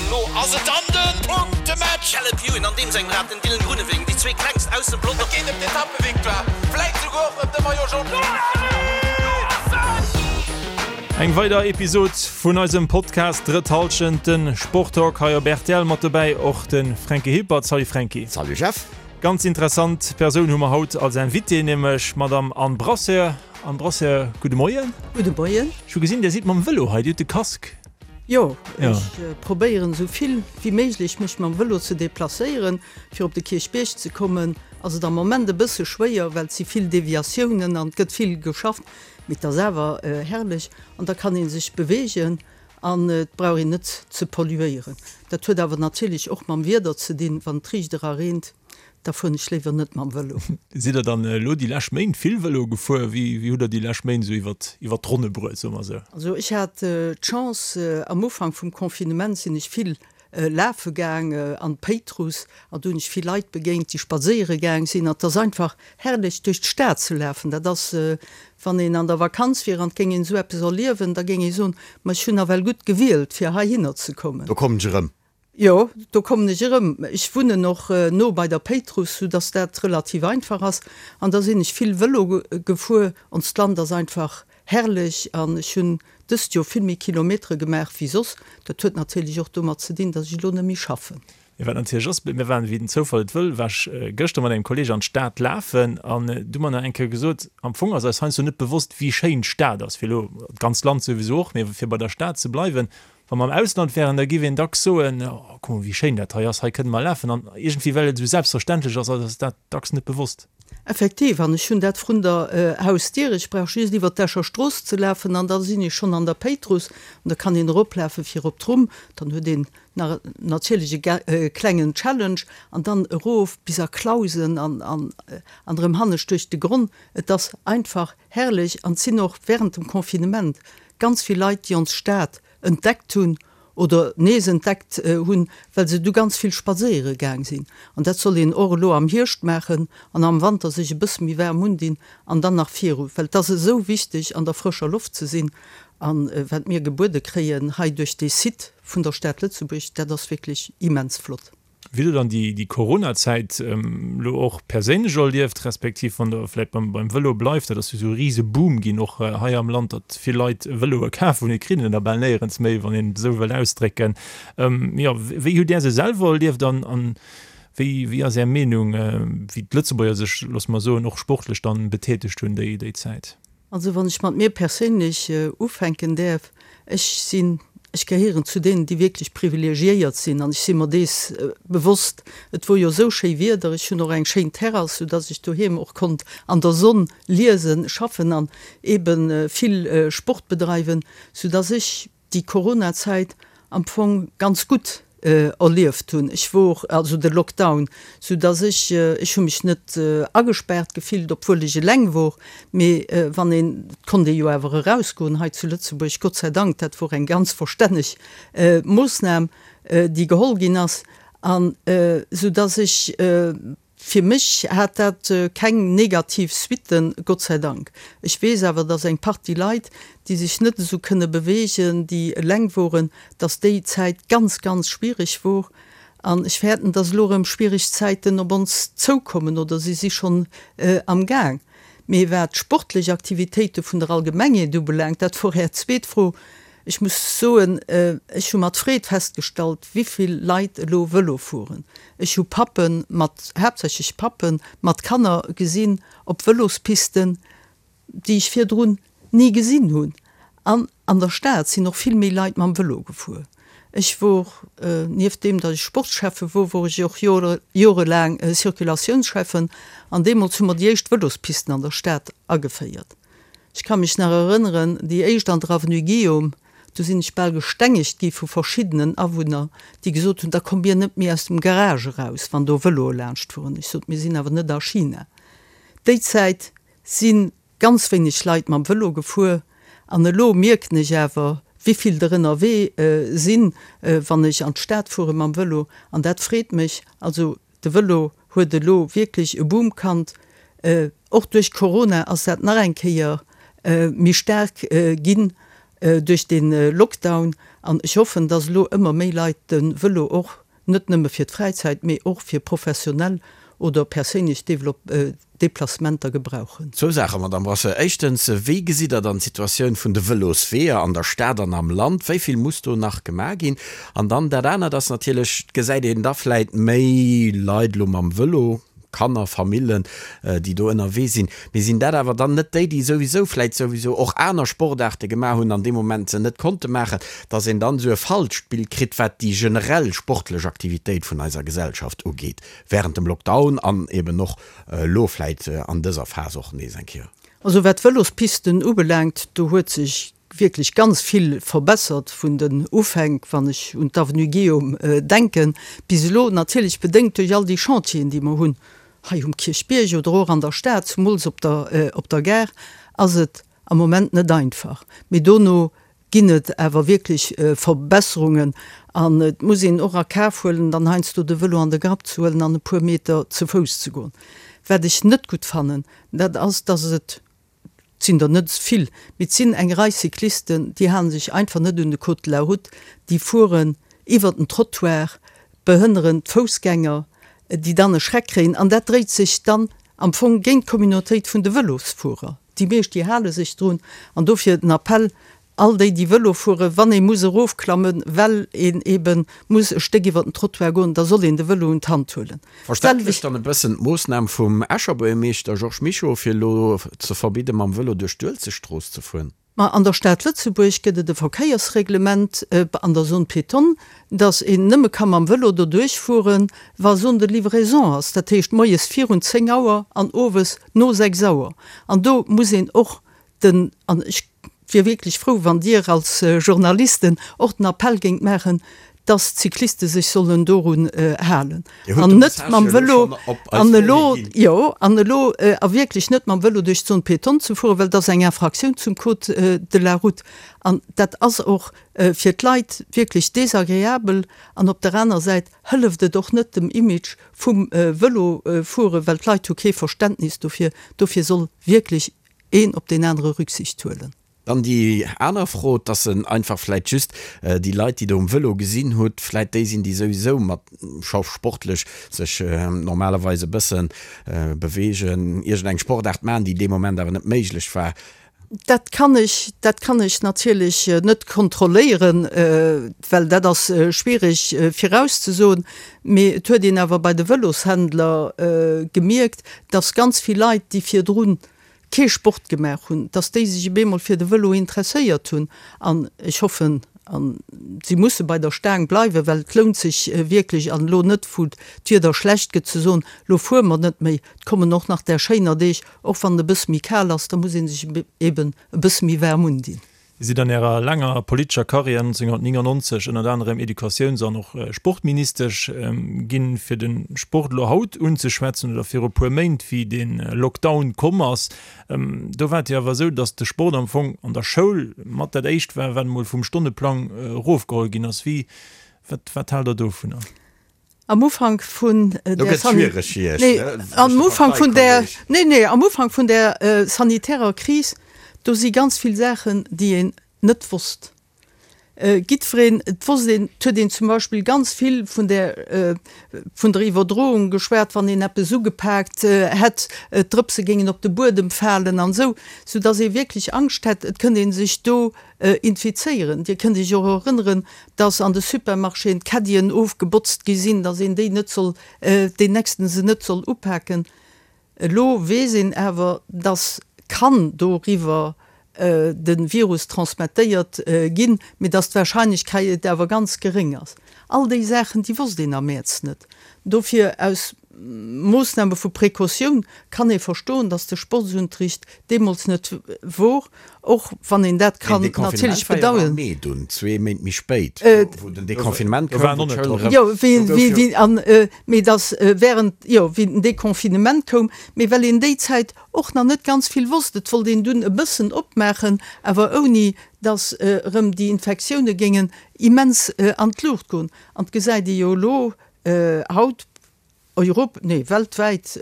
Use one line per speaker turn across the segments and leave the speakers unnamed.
An elo ass et dann de Punktematch! Caleb Ewan an deem sengem Rad, den Dylan Groenewegen, déi zwee klengst aus dem Pelotong. Et geet ëm d'Etappevictoire, vläit souguer och ëm de Maillot Jaune.
Eng weider Episod vun eisem Podcast Drëtt Hallschent, de Sporttalk hei op rtl. Mat dobäi och de Fränki Hilpert. Salut Fränki.
Salut Jeff.
Ganz interessant Persoun hu mer haut als Invitée, nämlech d'Madame Anne Brasseur. Anne Brasseur, gudde Moien.
Gudde Moien.
Ech hu gesinn, Dir sidd mam Vëlo hei, Dir hutt de Casque.
Jo, ech probéieren esou vill wéi méiglech mech mam Vëlo ze deplacéieren. Fir op de Kierchbierg ze kommen ass et am Moment e bësse schwéier, well et si vill Deviatiounen an et gëtt vill geschafft. Mee et ass awer herrlech an da kann ee sech beweegen an et brauch een net ze polluéieren. Dat huet awer natierlech och mam Wieder ze dinn, wann et riicht era reent. Da fueren ech léiwer net mam Vëlo.
Sidd der dann elo déi lescht Méint vill Vëlo gefuer? Wéi wéi hutt der déi lescht Méint esou iwwert iwwert d'Ronne bruet, soe mer esou?
Also ech hat d'Chance, am Ufank vum Confinement sinn ech vill lafe gaang an d'Péitruss an do hunn ech vill Leit begéint, déi spadséiere gaang sinn. An et ass einfach herrlech duerch d'Stad ze lafen. Dat ass, wann een an der Vakanz wier an et géing een esou eppes erliewen, da géing ee soen, ma ech hunn nawell gutt gewielt fir heihinner ze kommen.
Do kommen ech erëm.
Jo, do kommen ech erëm. Ech wunnen och no bei der Péitruss, sou dass dat relativ einfach ass. An da sinn ech vill Vëlo gefuer. Onst Land ass einfach herrlech an ech hunn dëst Joer vill méi Kilometere gemaach wéi soss. Dat huet natierlech och domat ze dinn, dass ech elo net méi schaffen.
Mee wat natierlech ass, mir waren, wéi den Zoufall et wëll, war ech gëschter mat engem Kolleeg an d'Stad lafen an du hu mer nach eng Kéier gesot, am Fong ass eis heiansdo net bewosst, wéi schéin d'Stad ass, fir elo, d'ganzt Land souwisou och, mee fir bei der Stad ze bleiwen, Wa mer am Ausland wären, da giff een dacks soen, Oh, kuck mol, wéi schéin dat hei ass, hei kënne mer lafen. An iergendwéi, well et esou selbstverständlech ass, ass eis dat dacks net bewosst.
Effektiv, an ech hunn dat vrun der Hausdier. Ech brauch just iwwer d'Escher Strooss ze lafen an da sinn ech schonn an der Péitruss. An da kann een eroplafe fir op d'Rumm. Dann huet een nach natierlech e klengen Challenge an dann erof bis a Clausen an an erëm hannescht duerch de Gronn. Et ass einfach herrlech an et sinn och während dem Confinement Ganz vill Leit, déi ons Stad entdeckt hunn oder nees entdeckt hunn, well se du ganz vill spadséiere gaang sinn. An dat soll een och elo am Hierscht maachen an am Wanter sech e bësse méi waarm undinn an dann nach viru, well et ass esou wichteg an der frëscher Loft ze sinn. A wat mir gebuede kréien hei duerch dee Site vun der Stad Lëtzebuerg, dat ass wierklech immens flott.
Wéi der dann déi Corona-Zäit elo och perséinlech erlieft, respektiv wann der vläicht beim Vëlo bleift, dat ass jo esou e rise Boom ginn och hei am Land, datt vill Leit Vëloe kaf hunn, et kritt een der bal néierens méi, wann een et esou wëll ausdrécken. Jo, wéi hutt Där se selwer erlieft an wéi wéi ass Är Meenung, wéi d'Lëtzebuerger sech, loosse mer soen, och sportlech dann betätegt hunn déi Zäit?
Also wann ech mat mir perséinlech ufänken däerf, ech sinn, ech gehéieren zu deenen, déi wierklech privilegiéiert sinn an ech si mer dees bewosst. Et wor jo esou schéi Wieder, ech hunn och eng schéin Terrass, soudass ech doheem och konnt an der Sonn liesen, schaffen an eebe vill Sport bedreiwen, soudass ech déi Corona-Zäit am Fong ganz gutt erlieft hunn. Ech wor, also de Lockdown, sou dass ech, ech hu mech net agespaart gefillt, obwuel ech eleng wor, mee wann een, et konnt ee jo awer erausgoen hei zu Lëtzebuerg, Gott sei Dank, dat wor eng ganz verstänneg Moossnam, déi geholl ginn ass, an sou dass ech, Fir mech hat dat keng negativ Suitten, Gott sei Dank. Ech weess awer, dass eng Partie Leit, déi sech net esou kënne beweegen, déi eleng woren, dass déi Zäit ganz, ganz schwierig wor. An ech fäerten, dass elo erëm schwierig Zäiten op ons zoukommen oder si si schonn am Gaang. Mee wat d'sportlech Aktivitéite vun der Allgemengheet ubelaangt, dat wor Är zweet Fro, Ech muss soen, ech hu mat Freed festgestallt, wivill Leit elo Vëlo fueren. Ech hu Pappe mat, haaptsächlech Pappe mat Kanner gesinn op Vëlospisten, déi ech virdrun ni gesinn hunn. An an der Stad sinn och vill méi Leit mam Vëlo gefuer. Ech wor, nieft deem, datt ech Sportscheffe wor, wor ech och jorelaang Circulatiounsschäffen an deemools hu mer déi éischt Vëlospisten an der Stad ageféiert. Ech ka mech nach erënneren, déi éischt an der Avenue Guillaume, do sinn ech bal gestengegt gi vu verschiddenen Awunner, déi gesot hunn, da kommt mir net méi aus dem Garage eraus, wann do Vëloe laanscht fueren. Ech sot, mir sinn awer net a China. Déi Zäit si ganz wéineg Leit mam Vëlo gefuer an elo mierken ech awer, wéi vill der ënnerwee sinn, wann ech an d'Stad fuere mam Vëlo an dat freet mech. Also De Vëlo huet elo wierklech e Boom kannt. Och duerch Corona ass dat nach eng Kéier méi staark ginn. duerch de Lockdown an ech hoffen, dass elo ëmmer méi Leit de Vëlo och net nëmme fir d'Fräizäit, mee och fir professionell oder perséinlech Deplacementer gebrauchen.
Zwou Saachen, Madamm Brasseur. Éischtens, wéi gesitt Der dann d'Situatioun vun de Vëlosweeër an der Stad an am Land? Wéi vill muss do nach gemaach ginn? An dann dat anert ass natierlech, et gesäit een da vläit méi Leit elo mam Vëlo, Kanner, Famillen, déi do ënnerwee sinn. Mee sinn dat awer dann net déi, déi souwisou vläit souwisou och aner Sportaarte gemaach hunn an dee Moment se net konnte maachen, dass een dann esou e falscht Bild kritt, wat déi generell sportlech Aktivitéit vun eiser Gesellschaft ugeet während dem Lockdown an eben och elo vläit an dëser Phas och nees eng Kéier?
Also wat d'Vëlospisten ubelaangt, do huet sech wierklech ganz vill verbessert vun den Ufänk, wann ech un d'Avenue Guillaume denken, bis elo, natierlech bedéngt duerch all déi Chantieren, déi mer hunn hei um Kierchbierg oder och an der Stad, zumools op der op der Gare, ass et am Moment net einfach. Mee dono ginn et awer wierklech Verbesserungen an et muss een och a Kaf huelen, dann heiansdo de Vëlo an de Grapp ze huelen an e puer Meter ze Fouss ze goen. Wat ech net gutt fannen, dat ass, dass et Et sinn der net vill, mee et sinn eng Rei Cyclisten, déi hale sech einfach net un de Code de la route, déi fueren iwwert den Trottoir, behënneren d'Foussgänger, déi dann e Schreck kréien. An dat dréit sech dann am Fong géint d'Communautéit vun de Vëlosfuerer. Déi meescht, déi hale sech drun. An dofir den Appell, All déi, déi Vëlo fueren, wann ee muss erofklammen, well een eebe muss e Stéck iwwer den Trottoir goen, da soll een de Vëlo un d'Hand huelen.
Verständlech dann e bëssen d'Moossnam vum Escher Buergermeeschter Georges Mischo, fir elo ze verbidde mam Vëlo duerch d'Uelzechtstrooss ze fueren.
Ma an der Stad Lëtzebuerg gëtt et e Verkéiersreglement an der Zone piétonne, dass een nëmme ka mam Vëlo doduerch fueren, wa Zone de livraison ass, dat heescht moies virun 10 Auer an owes no 6 Auer. An do muss een och den, an ech wier wierklech frou, wann Dir als Journalisten och den Appell géingt maachen, dass d'Cycliste sech sollen dorun halen an net mam Vëlo an elo, jo, an elo a wierklech net mam Vëlo duerch d'Zone piétonne ze fueren, well dat ass eng Infraktioun zum Code de la route an dat ass och fir d'Leit wierklech desagreabel an op der aner Säit hëlleft et och net dem Image vum Vëlofueren, well d'Leit hu kee Verständnis dofir. Dofir soll wierklech een op deen anere Rücksicht huelen.
Dann déi aner Fro, dass en einfach vläit just déi Leit, déi Der um Vëlo gesinn hutt, vläit déi sinn, déi souwisou mat scho sportlech sech normalerweis e bësse beweegen, iergendeng Sportaart maachen, déi dee Moment awer net méiglech war.
Dat kann ech, dat kann ech natierlech net kontrolléieren, well dat ass schwierig virauszesoen. Mee et huet een awer bei de Vëloshändler gemierkt, dass ganz vill Leit, déi virdrun kee Sport gemaach hunn, dass déi sech op eemol fir de Vëlo interesséiert hunn. An ech hoffen, a si musse bei der Staang bleiwen, well et lount sech wierklech, an elo net, wou d'Wieder schlecht gëtt, ze soen, elo fuere mer net méi. Et kommen och nach där schéiner Deeg, och wann et e bësse méi kal ass, da muss ee sech eben e bësse méi waarm undinn.
Dir sidd an Ärer laanger politescher Karriär 1999 ënnert anerem Educatiouns an och Sportministesch ginn. Fir de Sport elo haut unzeschwätzen oder viru puer Méint, wéi de Lockdown komm ass, do war et jo awer esou, datt de Sport am Fong an der Schoul mat dat éischt war, wat emol vum Stonneplang erofgeholl ginn ass. Wéi, wat, wat haalt Der dovunner?
Am Ufank vun der nee, am Ufank vun der nee, nee, am Ufank vun der sanitärer Kris, do si ganz vill Saachen, déi een net wosst. Jiddwereen, et wosst een, et huet een zum Beispill ganz vill vun der vun der Iwwerdroung geschwat, wann een eppes ugepaakt hätt, d'Drëpse géingen op de Buedem falen an esou, soudass ee wierklech Angscht hätt, et kënnt ee sech do infizéieren. Dir kënnt Iech och erënneren, dass an de Supermarchéen d'Caddien ofgebotzt gi sinn, dass een déi net soll, deen nächsten se net soll upaken. Elo weess een awer, dass kann doriwwer de Virus transmettéiert ginn, mee dass d'Wahrscheinlechkeit awer ganz geréng ass. All déi Saachen, déi wosst een am Mäerz net. Dofir aus Moossname vu Precautioun kann ee verstoen, datt de Sportsunterricht deemools net wor, och wann een dat kann natierlech bedauern.
Mee dunn, zwee Méint méi spéit, wou den Deconfinement koum, wou d'Schoul erëm.
Jo, wéi, an, mee datt während, jo, wéi den Deconfinement koum, mee well een déi Zäit och nach net ganz vill wosst, et wollt een dunn e bëssen opmaachen, awer ouni datt erëm déi Infektioune géingen immens an d'Luucht goen. An et gesäit ee jo elo haut, Europ, nee weltwäit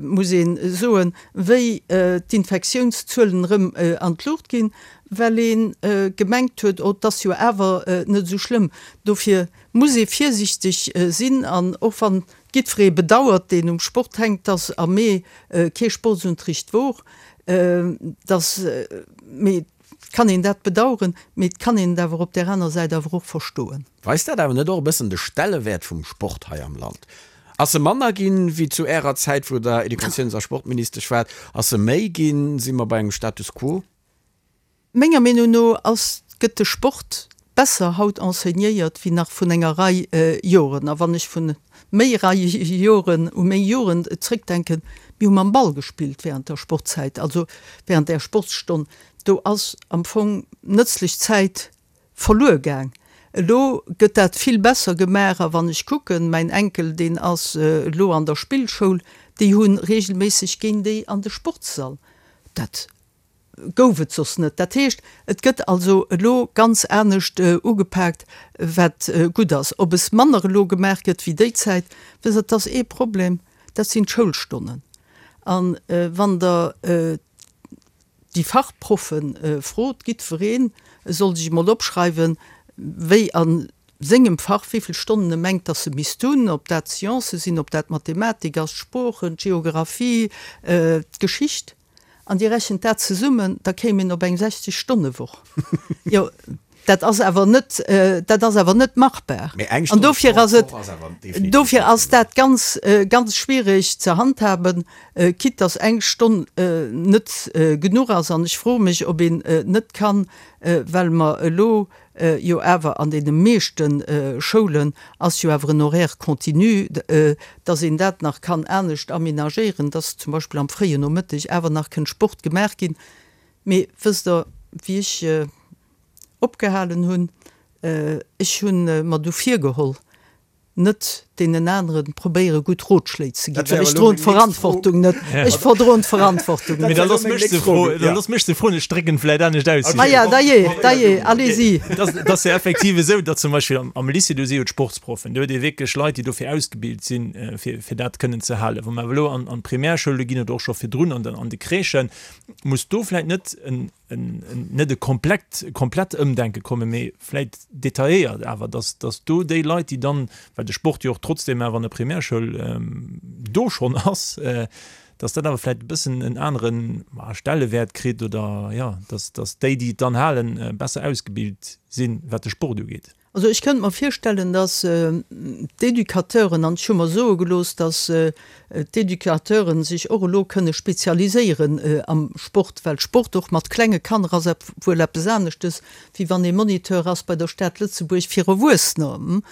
muss ee soen, wéi d'Infektiounszuelen erëm an d'Luucht ginn. well ee gemengt huet, oh, 't ass jo awer net esou schlëmm. Dofir muss ee virsiichteg sinn an och wann jiddweree bedauert, deen um Sport hänkt, dass am Mee kee Sportsunterricht wor, dass, mee et kann een dat bedauern, mee et kann een et awer op där aner Säit awer och verstoen.
Weist dat awer net och e bëssen de Stellewäert vum Sport hei am Land? Ass e manner ginn, wéi zu Ärer Zäit, wou Der Educatiouns a Sportministesch waart? Ass e méi ginn? Si mer bei engem Status quo?
Menger Meenung no ass, gëtt de Sport besser haut enseignéiert wéi nach vun enger Rei Joren. A wann ech vun méi Rei Joren u meng Jugend zréckdenken, mir hu mam Ball gespillt während der Sportzäit, also während där Sportsstonn. Do ass am Fong nëtzlech Zäit verluer gaang. Elo gëtt dat vill besser gemaach a wann ech kucken, mäin Enkel deen ass elo an der Spillschoul, déi hu regelméisseg géint déi an de Sportssall. Dat gouf et soss net. Dat heescht, et gëtt also elo ganz anescht ugepaakt, wat gutt ass. Ob es manner elo gemaach gëtt wéi déi Zäit, wësst Der, et ass ee Problem, dat sinn d'Schoulstonnen. A wann Der déi Fachproffe frot, jiddweree soll sech emol opschreiwen, wéi a sengem Fach, wéi vill Stonnen e mengt, dass e misst hunn, ob dat d'Sciencë sinn, ob dat d'Mathematik ass, d'Sproochen, d'Geographie, d'Geschicht. An Dir rechent dat zesummen, da kéim een op eng 60 Stonne Woch. Jo, dat ass awer net, dat ass awer net machbar.
Mee eng
An
Stonn
dofir
Sport
ass et,
d'Woch ass awer definitiv
dofir
net
ass
genuch.
dat ganz, ganz schwierig ze handhaben, quitte dass eng Stonn net genuch ass. An ech froe mech, ob een net kann, well mer elo jo awer an deene meeschte Schoulen ass jo awer en Horaire continu, dass een dat nach kann anescht aménagéieren, dass zum Beispill am fréien Nomëtteg awer nach kënnt Sport gemaach ginn. Mee wësst Der, wéi ech opgehalen hunn, ech hu mer du virgeholl, net deenen aneren probéiere gutt Rotschléi ze ginn, well ech droen d'Verantwortung net. Ech verdroen d'Verantwortung net.
Mee da looss mech se froen, da looss mech se froen, ech drécken vläit anescht aus.
Ah ja, dajee, dajee, allez-y.
Et ass jo effektiv esou, datt zum Beispill am Lycée, do si jo d'Sportsproffen, do huet ee wierklech Leit, déi dofir ausgebilt sinn, fir fir dat kënnen ze halen. Wa mer awer elo an d'Primärschoule ginn oder och scho virdrun an de Crèchen, muss do vläit net en net e komplett, komplett Ëmdenke kommen, mee vläit detailléiert awer, dass, dass do déi Leit, déi dann, well de Sport jo och trotzdem awer an der Primärschoul do schonn ass, dass dat awer vläit e bëssen en anere Stellewäert kritt oder, jo, dass, dass déi, déi et dann halen, besser ausgebilt sinn, wat de Sport ugeet.
Also ech kënnt mer virstellen, dass d'Educateuren, an ech hu mer soe gelooss, dass d'Educateuren sech och elo kënne spezialiséieren am Sport, well Sport och mat klenge Kanner ass wuel eppes aneschtes, wéi wann ee Moniteur ass bei der Stad Lëtzebuerg fir Erwuessener.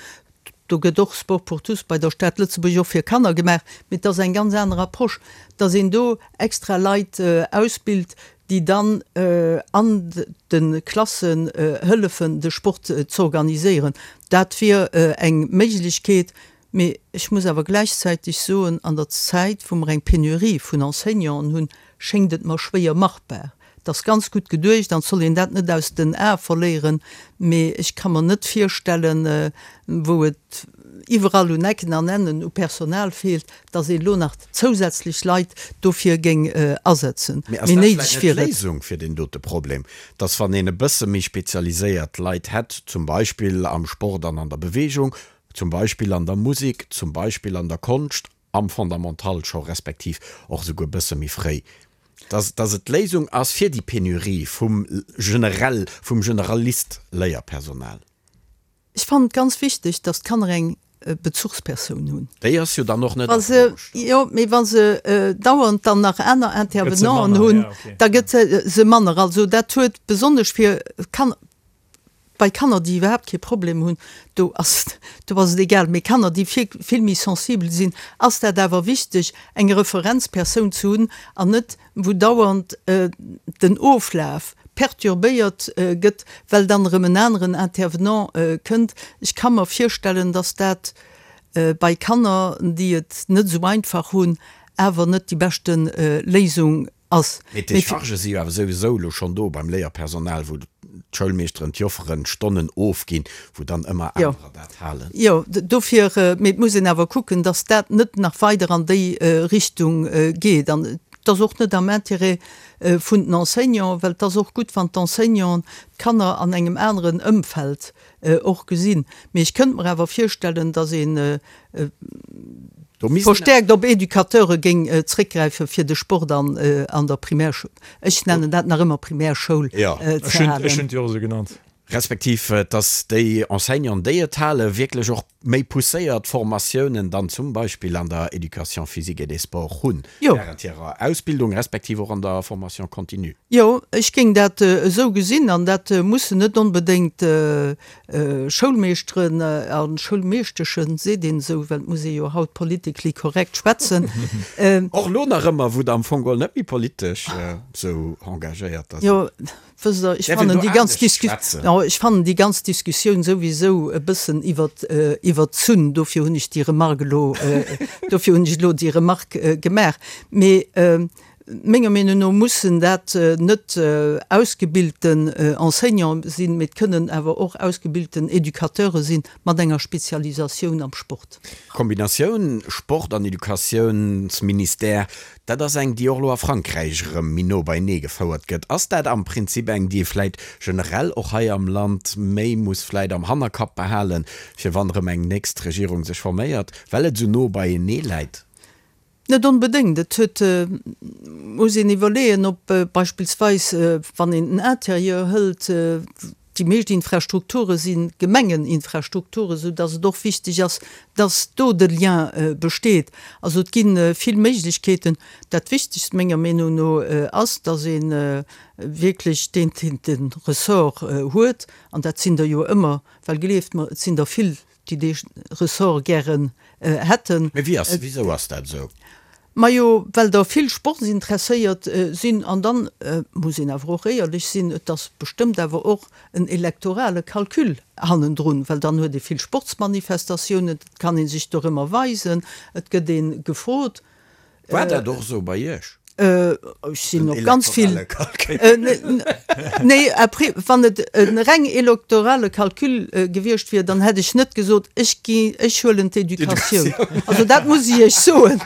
Do gëtt och Sport pour tous bei der Stad Lëtzebuerg och fir Kanner gemaach, mee et ass eng ganz aner Approche, dass een do extra Leit ausbilt, déi dann an de Klassen hëllefen, de Sport z'organiséieren. Dat wier eng Méiglechkeet. Mee ech muss awer gläichzäiteg soen, an der Zäit, wou mer eng Penurie vun Enseignanten hunn, schéngt et mer schwéier machbar. Et ass ganz gutt geduecht an et soll een dat net aus den Ae verléieren, mee ech ka mer net virstellen, wou et iwwerall un Ecken an Ennen u Personal feelt, dass een elo nach zousätzlech Leit dofir géing asetzen.
Mee ass dat vläicht net d'Léisung fir deen dote Problem, dass wann een e bësse méi spezialiséiert Leit hätt, zum Beispill am Sport an an der Bewegung, zum Beispill an der Musek, zum Beispill an der Konscht, am Fondamental scho respektiv och esouguer e bësse méi fréi, dass dass et d'Léisung ass fir déi Penurie vum generell, vum Generalist-Léierpersonal?
Ech fannen et ganz wichteg, dass d'Kanner eng Bezuchspersoun hunn.
Déi ass jo dann och net a Fro gestallt.
Jo, mee wa se dauernd dann nach aner Intervenanten hunn, da gëtt se manner. Also dat huet besonnesch fir Kanner, bei Kanner, déi iwwerhaapt kee Problem hunn, do ass do ass et egal, mee Kanner, déi vill méi sensibel sinn, ass dat awer wichteg, eng Referenzpersoun ze hunn an net wou dauernd den Oflaf perturbéiert gëtt, well dann erëm en aneren Intervenant kënnt. Ech ka mer virstellen, dass dat bei Kanner, déi et net esou einfach hunn, awer net déi beschte Léisung ass.
Mee d'Déchargë si jo awer souwisou elo schonn do beim Léierpersonal, wou d'Schoulmeeschteren, d'Jofferen Stonnen ofginn, wou dann ëmmer anerer dat halen.
Jo, dofir, mee et muss een awer kucken, dass dat net nach weider an déi Richtung geet. An. Et ass och net am Intérêt vun den Enseignanten, well et ass och gutt, wann d'Enseignanten d'Kanner an engem aneren Ëmfeld och gesinn. Mee ech kënnt mer awer virstellen, datt ee verstärkt op Educateure géing zréckgräife fir de Sport an der Primärschoul, ech nennen dat nach ëmmer Primärschoul,
ze halen. Ech hunn et jo och esou genannt.
Respektiv dass déi Enseignanten, déi et halen, wierklech och méi pousséiert Formatiounen dann zum Beispill an der Éducation physique et des sports hunn, während hirer Ausbildung, respektiv och an der Formation continue.
Jo, ech géing dat esou gesinn. An dat mussen net onbedéngt Schoulmeeschteren a Schoulmeeschteschen, seet een esou, well et muss ee jo haut politically correct schwätzen.
Och elo nach ëmmer, wou Der am Fong geholl net méi politesch esou engagéiert
sidd. Jo, Wësst Der, ech fannen déi ganz Disku, jo, ech fannen déi ganz Diskussioun souwisou e bëssen iwwer, iwwerzunn. Dofir hunn ech déi Remarque elo, dofir hunn ech elo déi Remarque gemaach. Mee menger Meenung no mussen dat net ausgebilten Enseignante sinn, mee et kënnen awer och ausgebilten Educateure sinn mat enger Spezialisatioun am Sport.
D'Kombinatioun Sport an Educatiounsministère, Dat ass eng, déi och elo a Frankräich erëm méi no beienee gefouert gëtt. Ass dat am Prinzip eng, déi ee vläit generell och hei am Land méi muss vläit am Hannerkapp behalen, fir wann erëm eng nächst Regierung sech forméiert, well et esou no beienee läit?
Net onbedéngt. Et huet, muss een iwwerleeën, ob beispillsweis, wann een den Interieur hëlt, Déi meescht Infrastrukture si Gemengeninfrastrukturen, esou dass et och wichteg ass, dass do de Lien besteet. Also et gi vill Méiglechkeeten. Dat Wichtegst menger Meenung no ass, dass ee wierklech deen, deen de Ressort huet, an dat sinn der jo ëmmer, well gleeft mer, et sinn der vill, déi dee Ressort gären hätten.
Mee wéi ass, wisou ass dat esou?
Majo, well der vill Sportsinteresséiert sinn. An dann muss een awer och éierlech sinn, et ass bestëmmt awer och en elektorale Calcul hannendrun, well dann huet ee vill Sportsmanifestatiounen, et kann ee sech dorëmmer weisen, et gëtt ee gefrot.
War dat och esou bei Iech?
Ech sinn op ganz vill. Nee, après, wann et e reng elektorale Calcul gewiescht wier, dann hätt ech net gesot, ech gi, ech huelen d'Educatioun. Also dat muss ech Iech soen.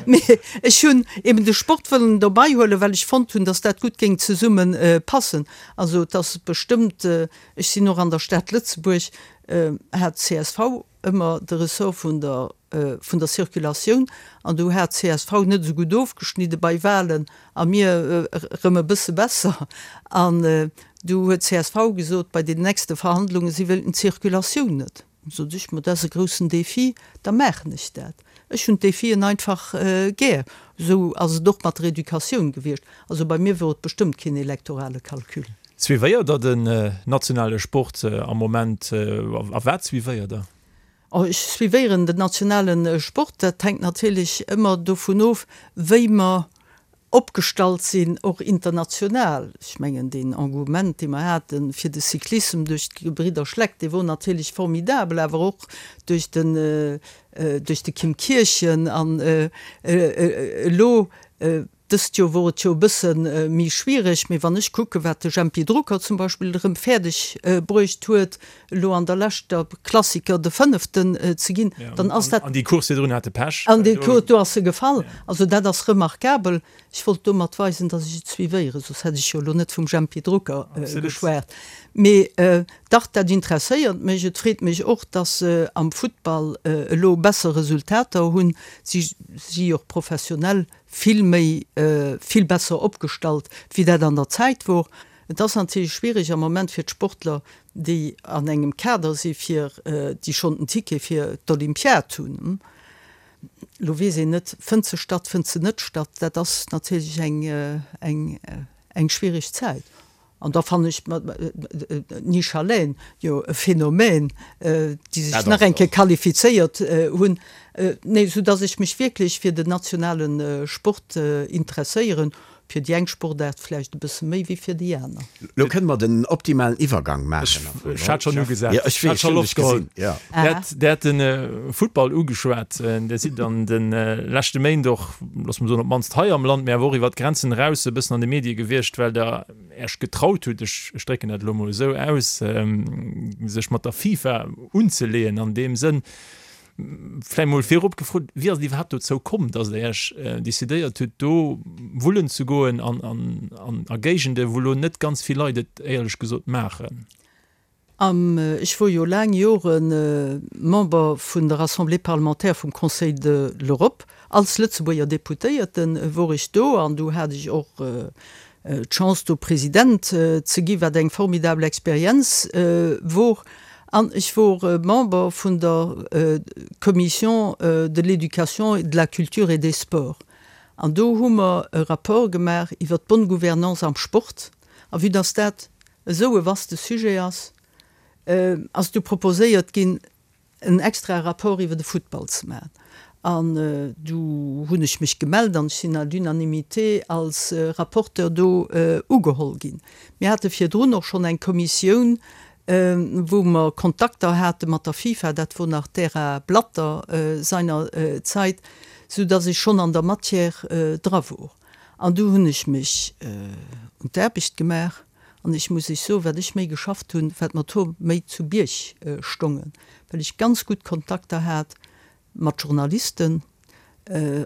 Mee ech hunn eben de Sport wëllen dobei huelen, well ech fonnt hunn, datt dat gutt géing zesumme passen. Also et ass bestëmmt, ech sinn och an der Stad Lëtzebuerg, hat csv ëmmer de Ressort vun der vun der Circulatioun an do hat csv net esou gutt ofgeschnidde bei Wahlen a mir erëm e bësse besser an du huet csv gesot bei den nächste Verhandlungen, si wéilten d'Circulatioun net. Sot ech, ma dat ass e groussen Défi, da maachen ech dat. Ech hunn d'Défien einfach gär. Esou ass et och mat der Educatioun gewiescht. Also bei mir wor et bestëmmt keen elektorale Calcul.
Suivéiert der den nationale Sport am Moment a wat suivéiert der?
Ech suivéieren den nationale Sport. Dat hänkt natierlech ëmmer dovun of, wéi mer opgestallt sinn, och international. Ech mengen, deen Engouement, dee mer hate fir de Cyclissem duerch d'Gebridder Schleck, dee wor natierlech formidabel, awer och duerch den, duerch de Kim Kirchen an elo Dëst Joer wor et jo e bësse méi schwiereg, mee wann ech kucken, wat de Jempy Drucker zum Beispill erëm fäerdeg bruecht huet, elo an der leschter Klassiker de Fënneften ze ginn, dann ass dat.
An déi Course virdrun hat e Pech.
An déi Course, do ass e gefall. Also dat ass remarkabel. Ech wollt domat weisen, datt ech et suivéieren, soss hätt ech jo elo net vum Jempy Drucker geschwat. Mee dach, dat interesséiert mech. Et freet mech och, datt se am Futtball elo besser Resultater hunn. Si si och professionell vill méi, vill besser opgestallt, wéi dat an der Zäit wor. Et ass natierlech schwierig am Moment fir d'Sportler, déi an engem Kader si fir, déi schonn den Ticket fir d'Olympiad hunn. Elo weess een net, fënnt se statt, fënnt se net statt. Dat ass natierlech eng, eng, eng schwierig Zäit. An da fannen ech d'Nisha Lehn jo e Phänomen, déi sech nach eng Kéier qualifizéiert hunn. Nee, sou dass ech mech wierklech fir den nationale Sport interesséieren, fir déi eng Sportaart vläicht e bësse méi wéi fir déi aner.
Lo kënne mer den optimalen Iwwergang maachen.
Ech hat schonn ugesat. Jo, ech weess, ech hunn dech gesinn. Jo. Der hat de Futtball ugeschwat. Dir sidd an de leschte Méint och, loosse mer soen, op d'mannst hei am Land, mee awer och iwwer d'Grenzen eraus e bëssen an de Medie gewiescht, well Der Äech getraut hutt, ech drécken dat elo emol esou aus, sech mat der FIFA unzeleeën an deem Sënn. Vläicht mol virop gefrot, Wéi ass et iwwerhaapt dozou komm, datt Der Iech decidéiert hutt, do wullen ze goen an a Géigende wou elo net ganz vill Leit et éierlech gesot maachen?
Ech wor jo laang Jore Member vun der Assemblée parlementaire vum Conseil de l'Europe. Als Lëtzebuerger Deputéierte wor ech do an du hat ech och d'Chance do President ze gi, wat eng formidabel Experienz wor. An ech wor Member vun der Commission de l'éducation, de la culture et des sports. An do hu mer e Rapport gemaach iwwer d'bonne gouvernance am Sport. A vue dass dat esou e vaste Sujet ass, ass du proposéiert ginn, en extrae Rapport iwwer de Futtball ze maachen. An du hunn ech mech gemellt an ech sinn à l'unanimité als Rapporteur do ugeholl ginn. Mir hate virdrun och schonn eng Kommissioun, wou mer Kontakter hate mat der FIFA, dat wor nach d'Ära Blatter seiner Zait, soudass ech schonn an der Matière dra wor. An du hunn ech mech un d'Aarbecht gemaach an ech muss Iech soen, wat ech méi geschafft hunn, wat mer d'Hoer méi zu Bierg stongen, well ech ganz gutt Kontakter hat mat Journalisten,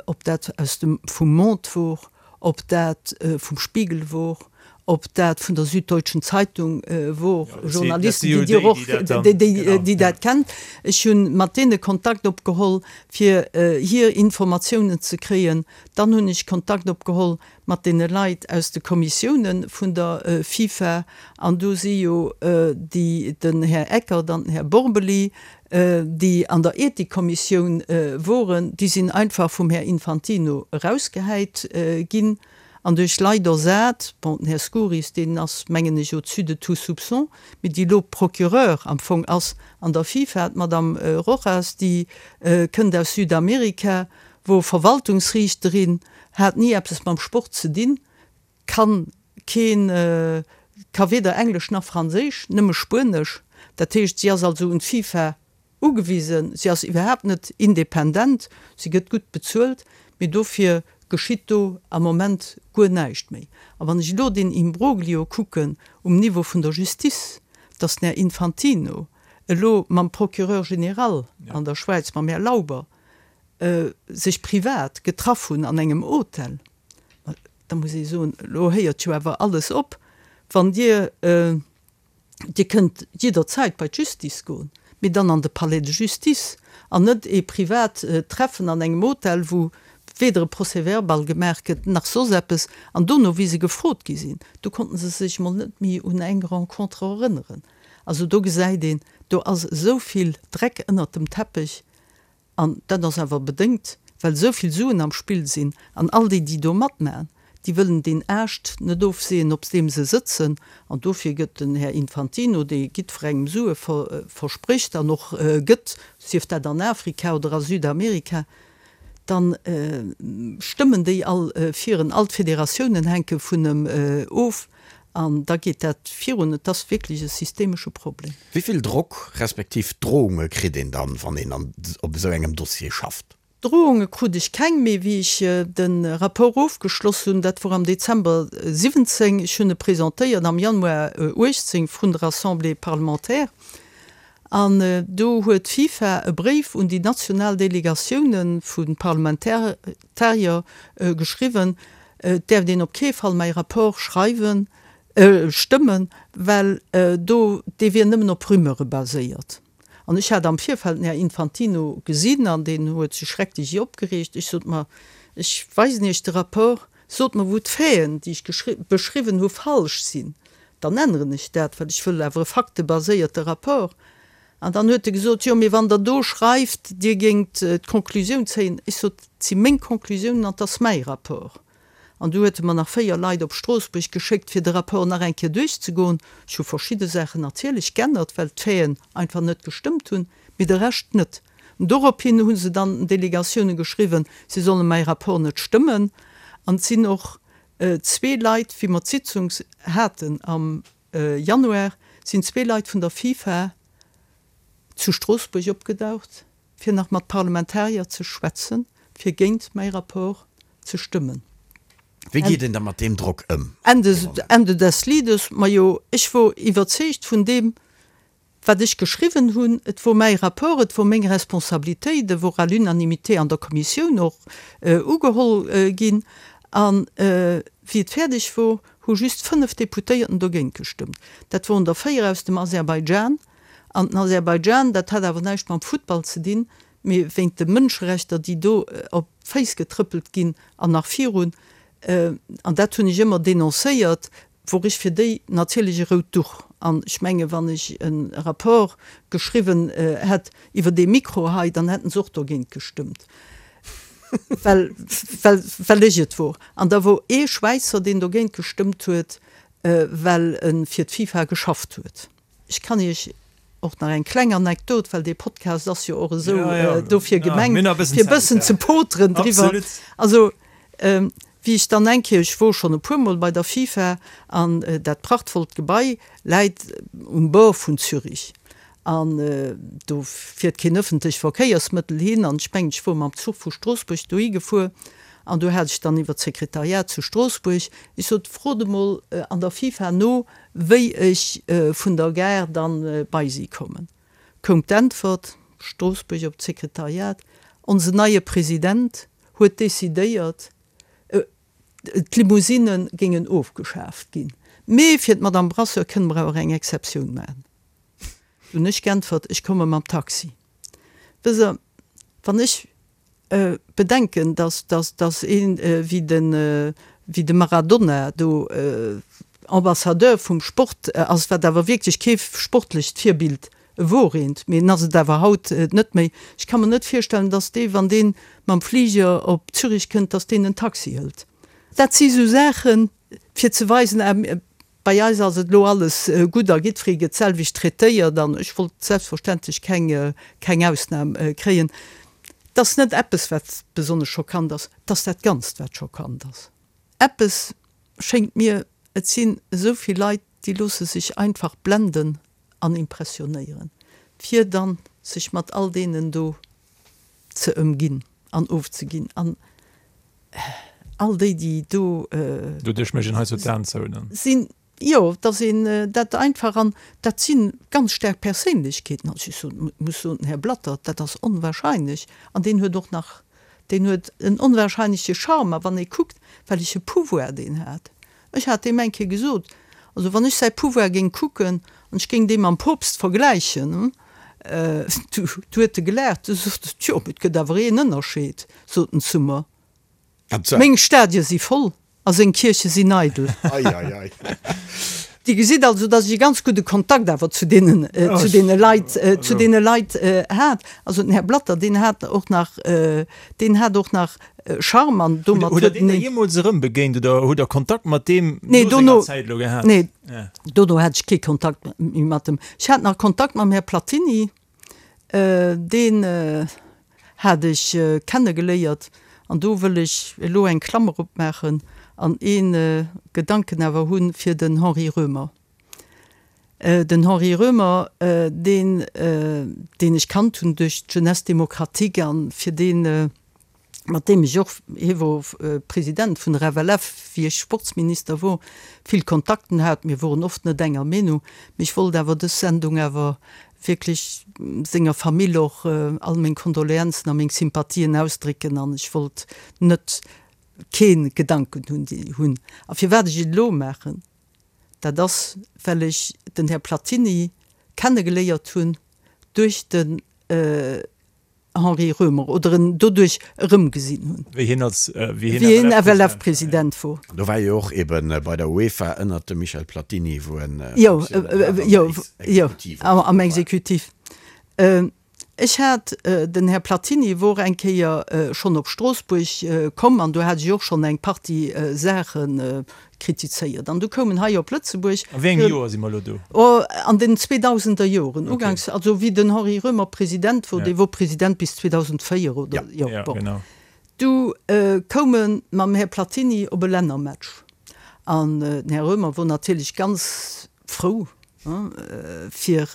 ob dat aus dem vum Monde wor, ob dat vum Spiegel wor, ob dat vun der Süddeutschen Zeitung wor, Journalisten, déi Dir och, déi dat kennt. Ech hu mat deene Kontakt opgeholl, fir hir Informatiounen ze kréien. Dann hunn ech Kontakt opgeholl mat deene Leit aus de Kommissiounen vun der FIFA, an do si jo déi, den Här Eckert an den Här Borbély, déi an der Ethikkommissioun woren, déi sinn einfach vum Här Infantino erausgehäit ginn an duerch Leit ersat, bon, den Här Skouris, deen ass, mengen ech, au-dessus de tout soupçon, mee déi elo Procureur am Fong ass an der FIFA, d'Madame Rojas, déi kënnt aus Südamerika, wor Verwaltungsriichterin, hat ni eppes mam Sport ze dinn, kann keen, ka weder Englesch nach Franséisch, nëmme Spuenesch. Dat heescht, si ass also un d'FIFA ugewisen, si ass iwwerhaapt net independent, si gëtt gutt bezuelt, mee dofir geschitt do am Moment guer näischt méi. A wann ech elo deen Imbroglio kucken um Niveau vun der Justice, dass den Här Infantino elo mam Procureur général an der Schwäiz, mam Här Lauber, sech privat getraff hunn an engem Hotel, ma da muss ee soen, elo héiert jo awer alles op, wann Dir, Dir kënnt jidderzäit bei d'Justice goen, mee dann an de Palais de Justice an net ee privat Treffen an engem Hotel, wou weder e Procès-verbal gemaach gëtt nach soss eppes. An dono, wéi se gefrot gi sinn, do konnte se sech mol net méi un eng Rencontre erënneren. Also do gesäit een, do ass esou vill Dreck ënnert dem Teppech. An dat ass awer bedéngt, well esou vill Suen am Spill sinn an all déi, déi do matmachen, déi wëllen deen Aascht net ofseeën, op deem se sëtzen. An dofir gëtt den Här Infantino, dee jiddwerengem Sue versprécht an och gëtt, sief dat an Afrika oder a Südamerika, da stëmmen déi all fir en, all d'Federatiounen hänke vun em of an da geet dat virun. Et ass wierklech e systemesche Problem.
Wéi vill Drock respektiv Drohunge kritt een dann, wann een an op esou engem Dossier schafft?
Drohunge krut ech keng, mee wéi ech de Rapport ofgeschloss hunn, dat wor am Dezember 17, ech hunn e presentéiert am Januar 18 vrun der Assemblée parlementaire, an do huet d'FIFA e Bréif un déi national Delegatioune vu Parlamentarier geschriwwen, et däerft een op kee Fall mäi Rapport schreiwen, Stëmmen, well do, dee wier nëmmen op Rumeure baséiert. An ech hat am Virfeld den Här Infantino gesinn an deen huet sech schrecklech opgereegt. Ech sot, Ma ech weisen Iech de Rapport, sot mer, wou d'Faiten, déi ech beschriwwen hu, falsch sinn, dann änneren ech dat, well ech wëll awer e faktebaséierte Rapport. An dann huet e gesot, Jo, mee wann Der do schreift, Dir géingt d'Conclusioun zéien. Ech sot, Et si meng Conclusiounen an et ass mäi Rapport. An du huet e mer nach 4 Leit op Stroossbuerg geschéckt, fir de Rapport nach eng Kéier duerchzegoen. Ech hu verschidde Saachen natierlech g'ännert, well d'Faiten einfach net gestëmmt hunn, mee de Rescht net. An dorophin hu se dann den Delegatioune geschriwwen, si solle mäi Rapport net stëmmen. An et sinn och zwee Leit, wéi mer d'Sitzung haten am Januar, sinn zwee Leit vun der FIFA zu Stroossbuerg opgedaucht, fir nach mat Parlamentarier ze schwätzen, fir géint mäi Rapport ze stëmmen.
Wéi geet een da mat deem Drock ëm?
Ende des Liedes, majo, ech wor iwwerzeegt vun deem. Wat ech geschriwwen hunn, et wor mäi Rapport, et wor meng Responsabilitéit, e wor à l'unanimité an der Kommissioun och ugeholl ginn. A wéi et fäerdeg wor, hu just 5 Deputéierten dogéint gestëmmt. Dat woren der 4 aus dem Aserbaidschan. An den Aserbaidschan, dat hat awer näischt mam Futtball ze dinn, mee wéint de Mënscherechter, déi do op d'Féiss getrëppelt ginn an nach virun, an dat hunn ech ëmmer denoncéiert, wor ech fir déi natierlech e rout Duch. An ech menge wann ech e Rapport geschriwwen hätt iwwer dee Mikro hei, dann hätten se och dogéint gestëmmt, well, well, well ech et wor. An da wor ee Schwäizer, deen dogéint gestëmmt huet, well e fir d'FIFA geschafft huet. Ech kann Iech och nach eng kleng Anekdot, well dee Podcast ass jo och esou dofir gemengt, fir e bëssen ze poteren driwwer. Also, wéi ech dann eng Kéier, ech wor schonn e puermol bei der FIFA, an dat prachtvollt Gebai läit um Bord vun Zürich, an do fiert keen ëffentlech Verkéiersmëttel hin, an ech mengen, ech wor mam Zuch vu Stroossbuerg dohi gefuer, an do hat ech dann iwwer d'Sekretariat zu Stroossbuerg, ech sot, frot emol an der FIFA no, Wéi ech vun der Gare dann bei si kommen, koum d'Äntwert, Stroossbuerg op d'Sekretariat, Onsen neie President huet decidéiert, d'Limousinne géingen ofgeschaaft ginn, mee fir d'Madame Brasseur kënne mer awer eng Exceptioun maachen. Du hunn ech geäntwert, Ech komme mam Taxi. Wësst Der, wann ech bedenken, dass, dass, dass een wéi de, wéi de Maradona do Ambassadeur vum Sport ass, wat awer wierklech kee sportlecht Virbild wor eent, mee en ass et awer haut net méi. Ech ka mer net virstellen, dass dee, wann dee mam Fliger op Zürich kënnt, dass deen en Taxi hëlt. Dat si sou Saachen, fir ze weisen, ah, Bei eis ass et elo alles gutt a jiddweree gëtt d'selwecht traitéiert an ech wollt selbstverständlech keng, keng Ausnam kréien. Et ass net eppes, wat besonnesch schockant ass, et ass dat Ganzt, wat schockant ass. Eppes schéngt mir, et sinn esou vill Leit, déi loosse sech einfach blenden an impressionéieren, fir dann sech mat all deenen do ze ëmginn an ofzeginn an all déi, déi do.
Doduerch mécht een hei sou d'Aen zou dann.
Sinn, jo, dass een dat einfach, an dat si ganz staark Perséinlechkeeten, also ech soen, muss soen, den Här Blatter, dat ass onwahrscheinlech an deen huet och nach, deen huet en onwahrscheinleche Charme a wann ee kuckt, welleche Pouvoir deen hat, Ech hat deem eng Kéier gesot, also wann ech säi Pouvoir géing kucken an ech géing dee mam Poopst vergläichen, du huet e gelaacht, du sot en, tjo, mee et gëtt awer een Ënnerscheed, sot en zu mer, meng Stadie si voll a seng Kierche sinn eidel. Dir gesitt also, datt ech e ganz gudde Kontakt awer zu deenen, zu deene Leit, zu deene Leit hat. Also den Här Blatter, deen hat och nach, deen hat och nach Charme an
domat huet. Hutt Der deen da jeemools erëm begéint oder hutt Der Kontakt mat deem no senger Zäit elo gehat?
Nee, dono hat ech kee Kontakt méi mat em. Ech hat nach Kontakt mam Här Platini, deen hat ech kennegeléiert an do wëll ech elo eng Klammer opmaachen an ee Gedanken awer hu fir den Henri Roemer. Den Henri Roemer, deen, deen ech kannt hunn duerch d'Jeunesse démocratique an fir deen, mat deem ech och, hie wor President vun der FLF, wéi ech Sportsminister wor, vill Kontakten hat. Mir woren oft net enger Meenung, mee ech wollt awer dës Sendung awer wierklech senger Famill och all meng Kondoleanzen a meng Sympathien ausdrécken an ech wollt net kee Gedanken hunn, déi hunn. A firwat ech et elo maachen, dat ass, well ech den Här Platini kennegeléiert hunn duerch den Henri Roemer oder en doduerch erëmgesinn hunn.
Wéi hien als,
wéi hien FLF-President wor.
Do war jo och eben bei der UEFA ënnert dem Michel Platini, wou en
Jo, jo, jo, am Exekutiv. Ech hat, den Här Platini wor eng Kéier schonn op Stroossbuerg komm an do hat ech och schonn eng Partie Saache kritizéiert. An du koum en hei op Lëtzebuerg.
A wéi engem Joer si mer elo do?
Oh, an den zweedausender Joren, uganks, also wéi den Henri Roemer President wor, dee wor President bis 2004 oder, jo, bon. Du koum e mam Här Platini op e Lännermatch an den Här Roemer wor natierlech ganz frou, fir,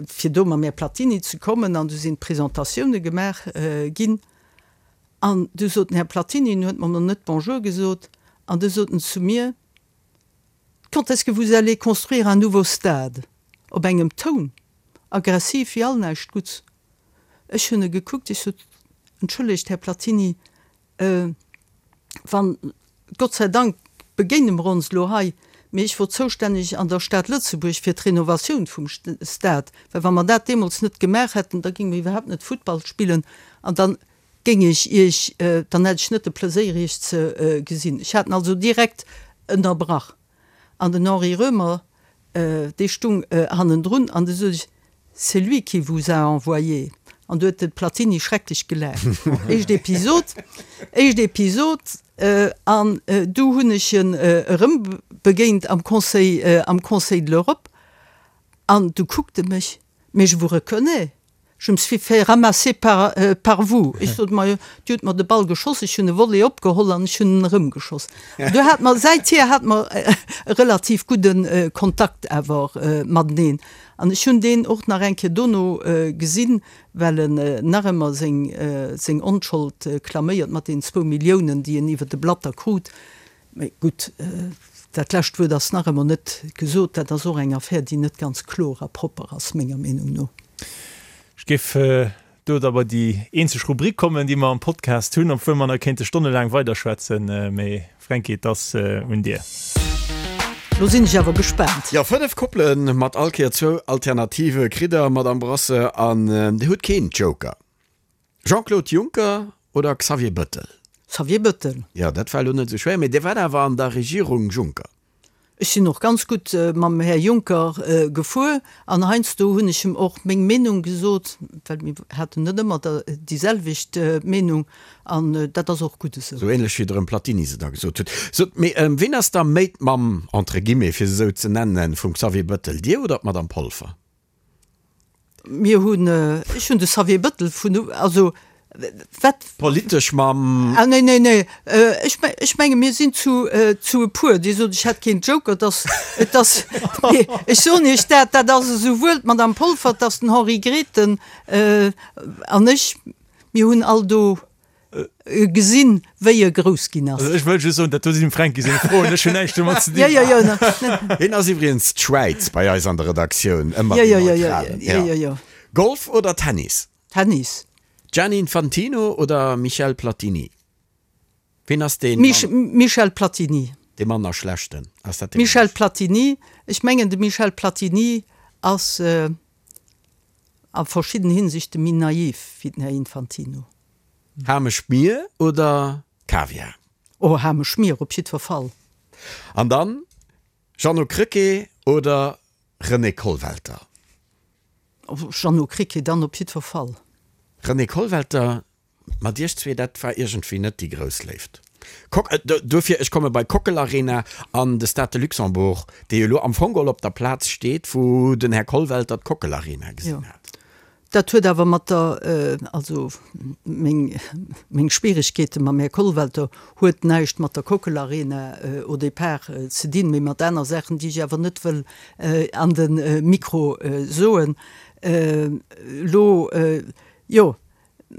fir do mam Här Platini ze kommen an du sinn d'Presentatioune gemaach ginn. An du sot den Här Platini, en huet mer nach net Bonjour gesot, an du sot en zu mir, Quand est-ce que vous allez construire un nouveau stade? Op engem Toun, aggressiv wéi all näischt Gutts. Ech hunn e gekuckt, ech sot, Entschëllegt, Här Platini, wann, Gott sei Dank begéine mer ons elo hei, mee ech wor zoustänneg an der Stad Lëtzebuerg fir d'Renovatioun vum Stade, well wa mer dat deemools net gemaach hätten, da géinge mer iwwerhaapt net Futtball spillen an da géing ech Iech, dann hätt ech net de Pleséier Iech ze gesinn. Ech hat en also direkt ënnerbrach. An den Henri Roemer, dee stung hannendrun an du sot ech, C'est lui qui vous a envoyé. An du huet de Platini schrecklech gelaacht. Éischt Episod, éischt Episod. An du hunn ech en erëm begéint am Conseil, am Conseil de l'Europe. An du kuckt e mech, Mais je vous reconnais. Je me suis fait ramasser par, par vous. Ech sot, Ma jo, Dir hutt mer de Ball geschoss, ech hunn e Volley opgeholl an ech hunn en erëmgeschoss. An du hate mer, säithier hate mer e relativ gudde Kontakt awer mateneen. An ech hunn deen och nach eng Kéier dono gesinn, well en nach ëmmer seng, seng Onschold klaméiert mat deenen zwou Milliounen, déi en iwwer de Blatter krut. Mee gutt, dat lescht Wuert ass nach ëmmer net gesot. Dat ass och eng Affär, déi net ganz kloer a propper ass, menger Meenung no.
Ech géif do da bei déi eenzeg Rubrik kommen, déi mer am Podcast hunn, obwuel mer nach kéinte stonnelaang weiderschwätzen. Mee Fränki, et ass un dir.
Lo sinn ech awer gespaant.
Jo, 5 Koppele mat all Kéier zwou Alternative kritt der, Madamm Brasseur, an Dir hutt keen Joker. Jean-Claude Juncker oder Xavier Bëttel?
Xavier Bëttel.
Jo, dat war elo net esou schwéier, mee Dir waart awer an der Regierung Juncker.
Ech sinn och ganz gutt mam Här Juncker gefuer an heiansdo hunn ech em och meng Meenung gesot, well mir haten net ëmmer déi selwecht Meenung an dat ass och gutt esou.
Sou ähnlech wéi der em Platini se da gesot hutt. Sot, mee ween ass da méi d'Mamm, entre guillemets, fir se esou ze nennen, vum Xavier Bëttel, Dir oder d'Madame Polfer?
Mir hunn, ech hunn de Xavier Bëttel vun, also wat.
Politesch mam.
Ah nee, nee, nee, ech, ech menge mir sinn zu, zu e puer. Dir sot, ech hätt keen Joker, et ass, et ass, nee, ech soen Iech dat, dat ass esouwuel d'Madame Polfer, et ass den Henri Grethen an ech, mir hunn all do Gesinn, wéi e grouss ginn ass.
Also ech wëll just soen, dat do sinn dem Fränki seng Froen, ech hunn näischt domat ze dinn.
Jo, jo, jo, ne.
Hien ass iwwregens d'Schwäiz bei eis an der Redaktioun, ëmmer deen Neutralen.
Jo, jo, jo.
Golf oder Tennis?
Tennis.
Gianni Infantino oder Michel Platini? Ween ass deen?
Michel Platini.
Dee manner schlechten? Ass
dat dee Michel Platini, ech mengen de Michel Platini ass a verschidden Hinsichte méi naiv wéi den Här Infantino.
Hameschmier oder Kaviar?
Oh, Hameschmier op jiddwer Fall.
An dann Jeannot Krecké oder René Kollwelter?
Jeannot Krecké dann op jiddwer Fall.
René Kollwelter, mat iech zwee, dat war iergendwéi net déi grouss Léift. Kok, duerfir, ech komme bei Kockel Arena an de Stade de Luxembourg, dee jo elo am Fong geholl op der Plaz steet, wou den Här Kollwelter d'Kockel Arena gesinn hat.
Dat huet awer mat der, also meng, meng Schwieregkeete mam Här Kollwelter huet näischt mat der Kockel Arena au départ ze dinn, mee mat aner Saachen, déi ech awer net wëll an de Mikro soen elo. Jo,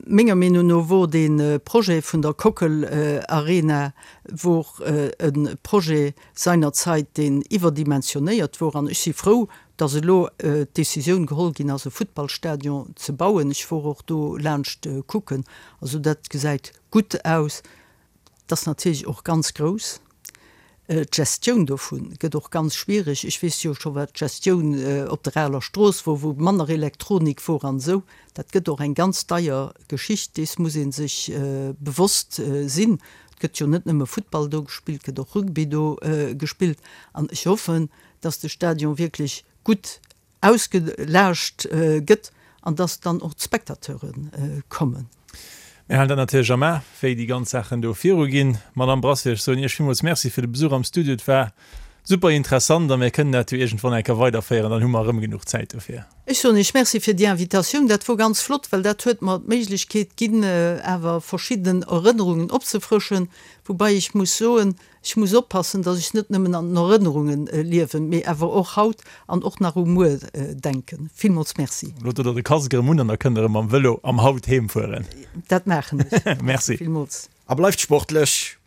Menger Meenung no wor dee Projet vun der Kockel Arena wor e Projet seinerzeit, deen iwwerdimensionéiert wor. An ech si frou, dass elo d'Décisioun geholl ginn ass, e Futtballstadion ze bauen. Ech wor och do laanscht kucken. Also dat gesäit gutt aus. Et ass natierlech och ganz grouss. D'Gestioun dovu gëtt och ganz schwierig. Ech weess jo scho wat d'Gestioun op der Aler Strooss wor, wou manner Elektronik wor an esou. Dat gëtt och eng ganz deier Geschicht, dees muss ee sech bewosst sinn. Et gëtt jo net nëmme Futtball do gespillt, et gëtt och Rugby do gespillt. An ech hoffen, datt de Stadion wierklech gutt ausgelaascht gëtt an dass dann och d'Spectateure kommen.
Mir halen dat natierlech am A, wéi déi ganz Saachen do viruginn. Madamm Brasseur, ech soen Iech villmools Merci fir de Besuch am Studio. Et war super interessant a mir kënnen dat jo iergendwann eng Kéier weiderféieren, dann hu mer erëm genuch Zäit dofir.
Ech soen Iech Merci fir déi Invitatioun. Dat wor ganz flott, well dat huet mer d'Méiglechkeet ginn, awer verschidden Erënnerungen opzefrëschen, woubai ech muss soen, Ech muss oppassen, datt ech net nëmmen an den Erënnerunge liewen, mee awer och haut an och nach u muer denken. Villmools Merci.
Lo dot der de Casque erëm un an da kënnt der erëm mam Vëlo am Haut heem fueren.
Dat maachen
ech. Merci
villmools.
A bleift sportlech!